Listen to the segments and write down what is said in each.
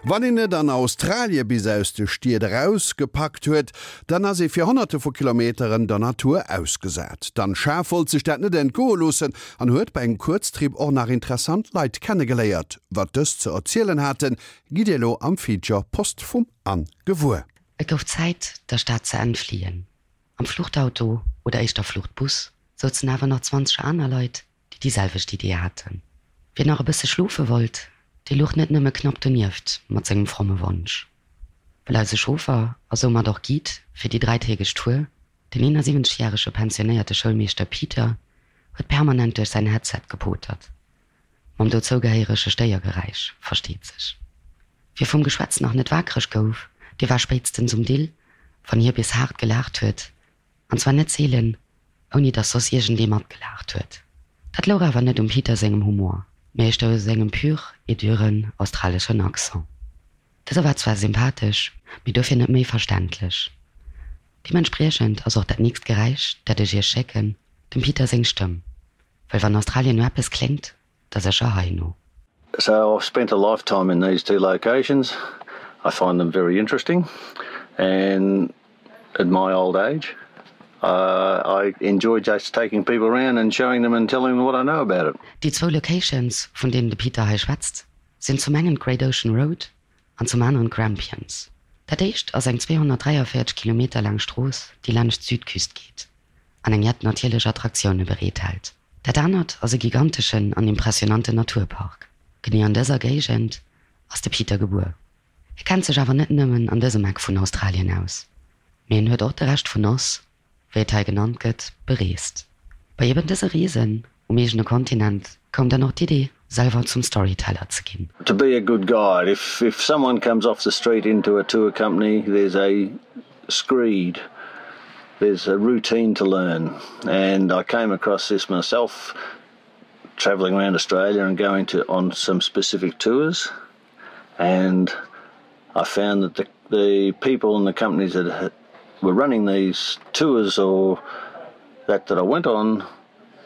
Wann een et an Australie bis aus de Stied eraus gepackt huet, dann ass ee fir Honnerte vu Kilometeren der Natur ausgesat. D'Anne Schaaf wollt sech dat net entgoe loossen an huet bei engem Kuerztrip och nach interessant Leit kennegeléiert. Wat dës ze erzielen haten, gitt dir elo am Feature Post vum Anne gewuer. Et gouf Zäit, der Stad ze entfliehen. Am Fluchtauto, oder éischter Fluchtbus, souzen awer nach 20 aner Leit, déi déi selwecht Idee haten. Wien nach e bësse schlofe wollt, dee luch net nëmme knapp donieft mat sengem fromme Wonsch. Well eise Chauffer a soumat och Guide fir déi dräitägeg Tour, den 71 järege pensionéierte Schoulmeeschter Peter, huet permanent duerch säin Headset gepotert, mam dozougehéierege Stéiergeräisch, versteet sech. Wie vum Geschwätz nach net wakereg gouf, dee war spéitstens um Dill, wann hie bis haart gelaacht huet, An zwar net seelen, ouni dass soss iergendee matgelaacht huet. Dat louch awer net um Peter sengem Humor, mee éischter u sengem pur et duren australeschen Accent. Dëse war zwar sympathesch, mee dofir net méi verständlech. Deementspriechend ass och dat nächst Geräisch, dat ech iech schécken, dem Peter seng Stëmm. Well wann Australien no eppes kléngt, da sécher hei no. So I've spent a lifetime in these two locations. I find them very interesting and at my old age uh, I enjoy just taking people around and showing them and telling them what I know about it. Déi zwou Locations, vun deenen de Peter hei schwätzt, sinn zum engen d'Great Ocean Road an zum aneren d'Grampians. Dat éischt ass eng 243 Kilometer laang Strooss, déi laanscht d'Südküst geet an eng jett natierlech Attraktioune bereethält. Dat anert ass e giganteschen an impressionanten Naturpark. Genee an dëser Géigend ass de Peter gebuer. Hie kennt sech awer net nëmmen an dësem Eck vun Australien aus, mee en huet och de Rescht vun Oz, wéi et hei genannt gëtt, bereest. Bei eben dëse Reesen um eegene Kontinent koum dann och d'Idee, selwer zum Storyteller ze ginn. To be a good guide, if if someone comes off the street into a tour company, there's a screed, there's a routine to learn and I came across this myself traveling around Australia and going to on some specific tours and I found that the, the people and the companies that were running these tours or that that I went on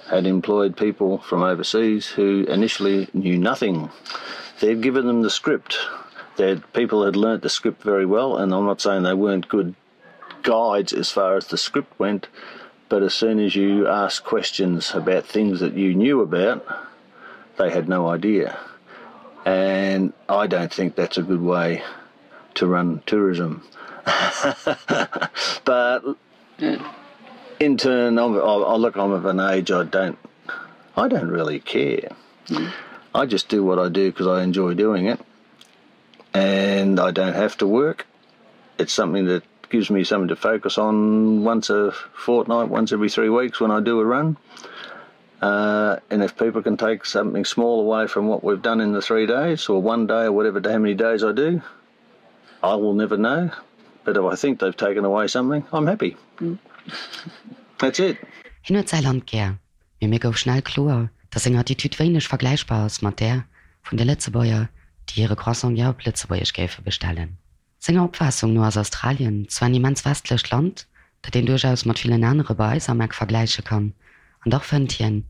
had employed people from overseas who initially knew nothing. They'd given them the script. That people had learnt the script very well, and I'm not saying they weren't good guides as far as the script went, but as soon as you asked questions about things that you knew about, they had no idea. And I don't think that's a good way to run tourism. but in turn, I'm, I, I look, I'm of an age I don't, I don't really care. Mm. I just do what I do because I enjoy doing it and I don't have to work. It's something that gives me something to focus on once a fortnight, once every three weeks when I do a run. Uh, and if people can take something small away from what we've done in the three days or one day or whatever how many days I do, I will never know. But if I think they've taken away something, I'm happy. Mm. That's it. Hien huet säi Land gär, mee mir gouf schnell kloer, datt seng Attitude wéineg vergläichbar ass mat där vun de Lëtzebuerger, déi hire Croissant gär op Lëtzebuergesch géife bestellen. Senger Opfaassung no ass Australien zwar en immens westlecht Land, dat een duerchaus mat villen anere bei eis am Eck vergläiche kann, an dach fënnt hien,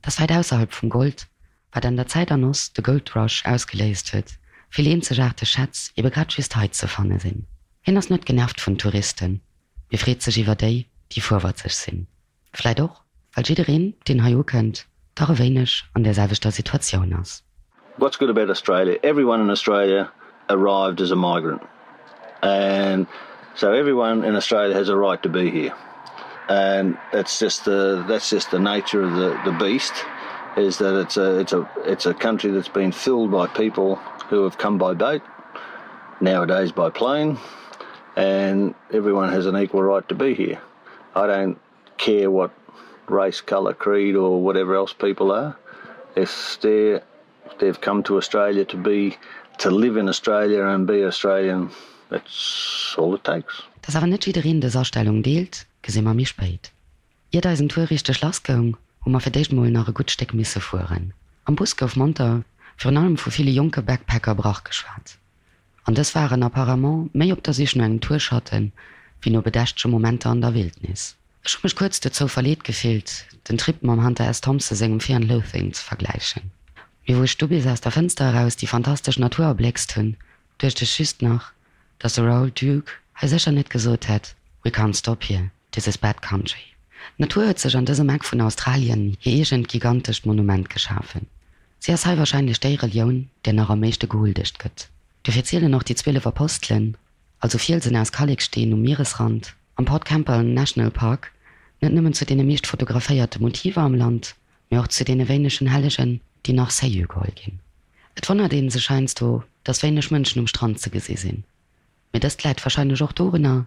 datt wäit ausserhalb vum Gold, wat an der Zäit an Oz de Gold Rush ausgeléist huet, vill eenzegaarteg Schätz ebe grad just hei ze fanne sinn. Hien ass net genervt vun Touristen, mee freet sech iwwer déi, déi fuerwatzeg sinn. Vläit och, well jiddereen, deen hei ukënnt, dach e wéineg an där selwechter Situatioun ass. What's good about Australia? Everyone in Australia arrived as a migrant and so everyone in Australia has a right to be here and that's just the that's just the nature of the the beast is that it's a it's a it's a country that's been filled by people who have come by boat nowadays by plane and everyone has an equal right to be here. I don't care what race, color, creed or whatever else people are. If they're they've come to Australia to be to live in Australia and be Australian, that's all it takes. Dass awer net jiddereen dës Astellung deelt, gesi mer méi spéit. Iert eisen Tour richteg lass goung, hu mer fir d'éischt mol nach e gutt Stéck misse fueren. Am Bus gouf monter, virun allem vu ville jonke Backpacker brach geschwat. An dës waren apparemment méi op der Sich no engem Tourschatten, wéi no bedächtege Momenter an der Wildnis. Ech hu mech kuerz dozou verleet gefillt, den Trip mam Hunter S. Thompson sengem Fear and Loathing ze vergläichen. Mee wou ech du bis aus der Fënster eraus déi fantastesch Natur erbléckst hunn, Duecht ech just nach, dass de Raoul Duke hei sécher net gesot hätt, We can't stop here, this is bad country. D'Natur huet sech an dësem Eck vun Australien hir eegent gigantescht Monument geschafen. Si ass hei warscheinlech déi Relioun, där nach am meeschte gehuldegt gëtt. Dofir zielen och déi 12 Apostelen, also Fielsen aus Kalleksteen um Mieresrand, am Port Campbell National Park, net nëmmen zu deene meescht fotograféierte Motiver am Land, mee och zu deene wéinegen Hellegen, déi nach sérieux geholl ginn. Et wonnert ee sech heiansdo, dass wéineg Mënschen um Strand ze gesi sinn. Mee dëst läit warscheinlech och dorunner,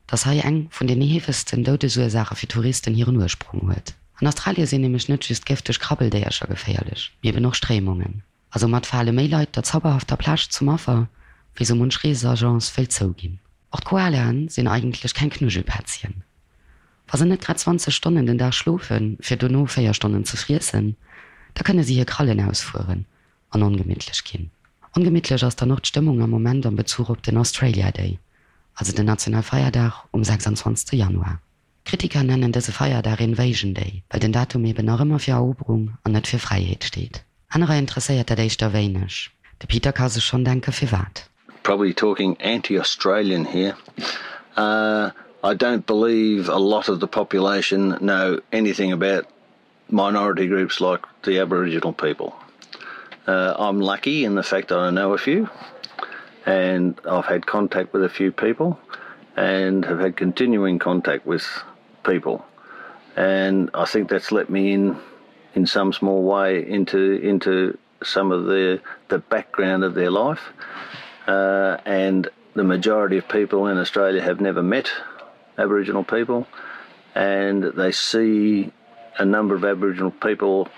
dass hei eng vun den heefegsten Doudesursaache fir Touristen hiren Ursprong huet. An Australie sinn nämlech net just gëfteg Krabbeldéiercher geféierlech, mee eben och Stréimungen. A soumat fale méi Leit der zauberhafter Plage zum Affer, wéi sou munch Reesagence wëllt zouginn. Och d'Koalaen sinn eigentlech keng Knuschelpätzchen. Wa se net grad 20 Stonnen den Dag schlofen, fir dono 4 Stonnen ze friessen, da kënne si hir Krallen ausfueren an ongemittlech ginn. Ongemittlech ass dann och d'Stëmmung am Moment am Bezuch op den Australia Day, also den Nationalfeierdag um 26 Januar. Kritiker nennen dëse Feierdag Invasion Day, well den Datum eben nach ëmmer fir Eroberung an net fir Fräiheet steet. Anerer interesséiert dat éischter wéineg. De Peter ka sech schonn denke firwat. Probably talking anti-Australian here. Uh, I don't believe a lot of the population know anything about minority groups like the Aboriginal people. Uh, I'm lucky in the fact that I know a few and I've had contact with a few people and have had continuing contact with people. And I think that's let me in in some small way into into some of the the background of their life. Uh, and the majority of people in Australia have never met Aboriginal people and they see a number of Aboriginal people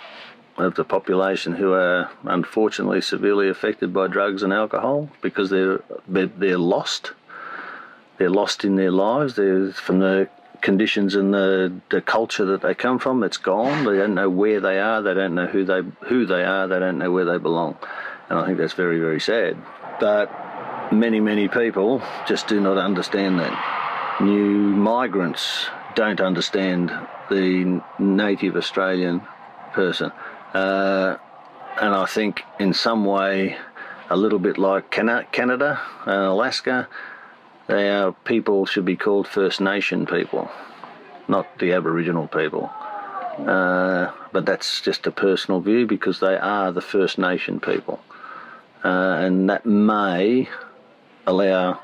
of the population who are unfortunately severely affected by drugs and alcohol because they're they're lost. They're lost in their lives. They're from the conditions and the, the culture that they come from, it's gone. They don't know where they are, they don't know who they who they are, they don't know where they belong. And I think that's very, very sad. But many, many people just do not understand that. New migrants don't understand the native Australian person. Uh, and I think in some way, a little bit like Canada and Alaska, our people should be called First Nation people, not the Aboriginal people. Uh, but that's just a personal view because they are the First Nation people. Uh, and that may allow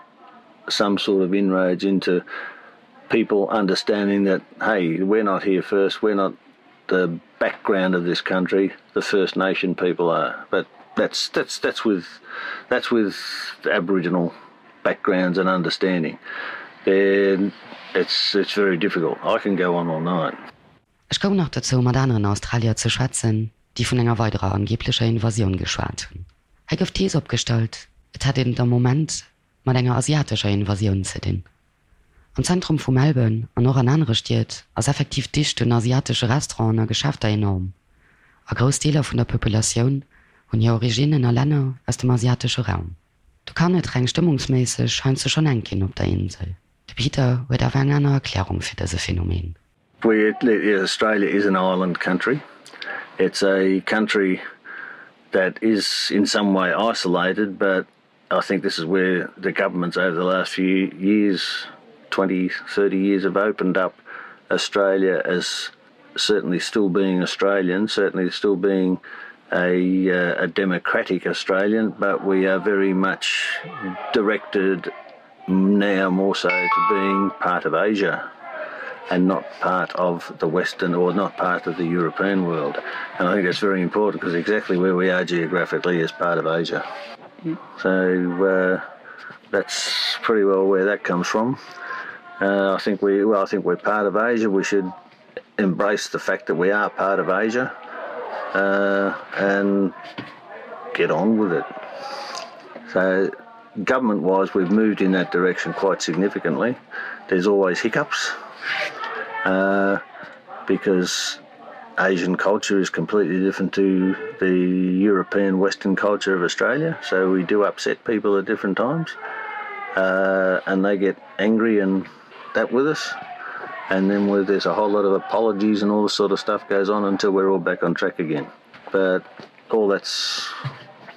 some sort of inroads into people understanding that, hey, we're not here first, we're not the background of this country, the First Nation people are. But that's that's that's with that's with Aboriginal backgrounds and understanding. Then it's it's very difficult. I can go on all night. Ech koum nach dozou, mat aneren Australier ze schwätzen, déi vun enger weiderer angeblecher Invasioun geschwat hunn. Hei gouf d'Thees opgestallt, et hätt een et am Moment mat enger asiatescher Invasioun ze dinn. Am Zentrum vu Melbourne an och an anere Stied ass effektiv d'Dicht un asiatesche Restauranten a Geschäfter enorm, a grouss Deeler vun der Populatioun hunn hir Originnen a Länner aus dem asiatesche Raum. Do kann et reng stëmmungsméisseg heiansdo schonn enk ginn op der Insel. De Peter huet awer eng aner Erklärung fir dëse Phänomen. We Australia is an island country. It's a country that is in some way isolated, but I think this is where the governments over the last few years 20 30 years have opened up Australia as certainly still being Australian, certainly still being a, uh, a democratic Australian, but we are very much directed now more so to being part of Asia and not part of the Western or not part of the European world. And I think that's very important because exactly where we are geographically is part of Asia. Mm. So uh, that's pretty well where that comes from. Uh, I think we well, I think we're part of Asia. We should embrace the fact that we are part of Asia uh, and get on with it. So government wise we've moved in that direction quite significantly. There's always hiccups uh, because Asian culture is completely different to the European Western culture of Australia, so we do upset people at different times uh, and they get angry and that with us. And then where there's a whole lot of apologies and all this sort of stuff goes on until we're all back on track again. But all that's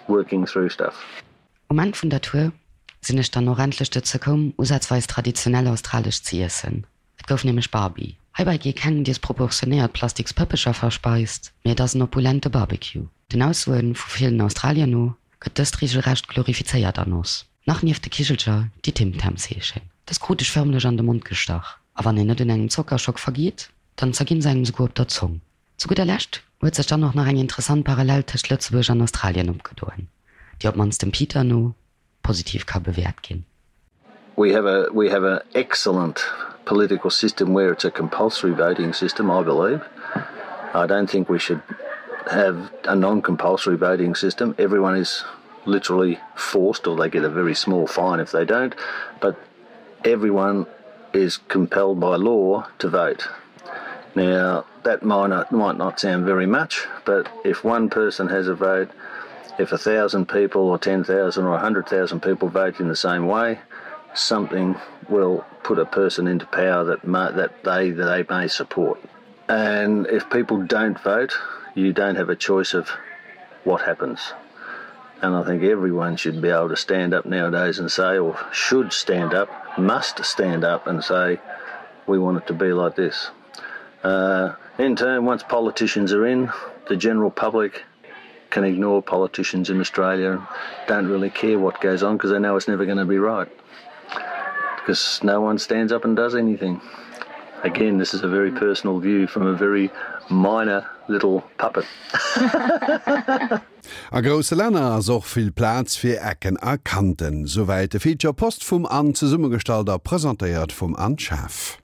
working through stuff. Um Enn vun der Tour sinn ech dann och endlech dozou koum, usazweis traditionell australesch ze iessen. Et gouf nämlech Barbie. Heibäi gi keng disproportionéiert plastiks Pëppecher verspeist, mee et ass en opulente Barbecue. Den Aussoe vu villen Australier no gëtt dëst reegelrecht glorifizéiert an oss. Nach nieft de Kichelcher, déi Tim Tams heeschen. Dës krut ech fërmlech an de Mond gestach, a wann een net un engem Zockerschock vergeet, dann zerginn se engem souguer op der Zong. Zu gudder Lescht huet sech dann och nach eng interessant Parallel tëscht Lëtzebuerg an Australien opgedoen, déi op d'mannst dem Peter no positiv ka bewäert ginn. We have a we have an excellent political system where it's a compulsory voting system, I believe. I don't think we should have a non-compulsory voting system. Everyone is literally forced or they get a very small fine if they don't, but everyone is compelled by law to vote. Now that might not, might not sound very much, but if one person has a vote, if 1,000 people or 10,000 or 100,000 people vote in the same way, something will put a person into power that may, that they that they may support. And if people don't vote, you don't have a choice of what happens. And I think everyone should be able to stand up nowadays and say, or should stand up, must stand up and say, we want it to be like this. Uh, in turn, once politicians are in, the general public can ignore politicians in Australia and don't really care what goes on because they know it's never going to be right. Because no one stands up and does anything. Again, this is a very personal view from a very minor little puppet. A grousse Länner ass och vill Plaz fir Ecken a Kanten. Souwäit de Feature Post vum Anne, zesummegestallt a presentéiert vum Anne Schaaf.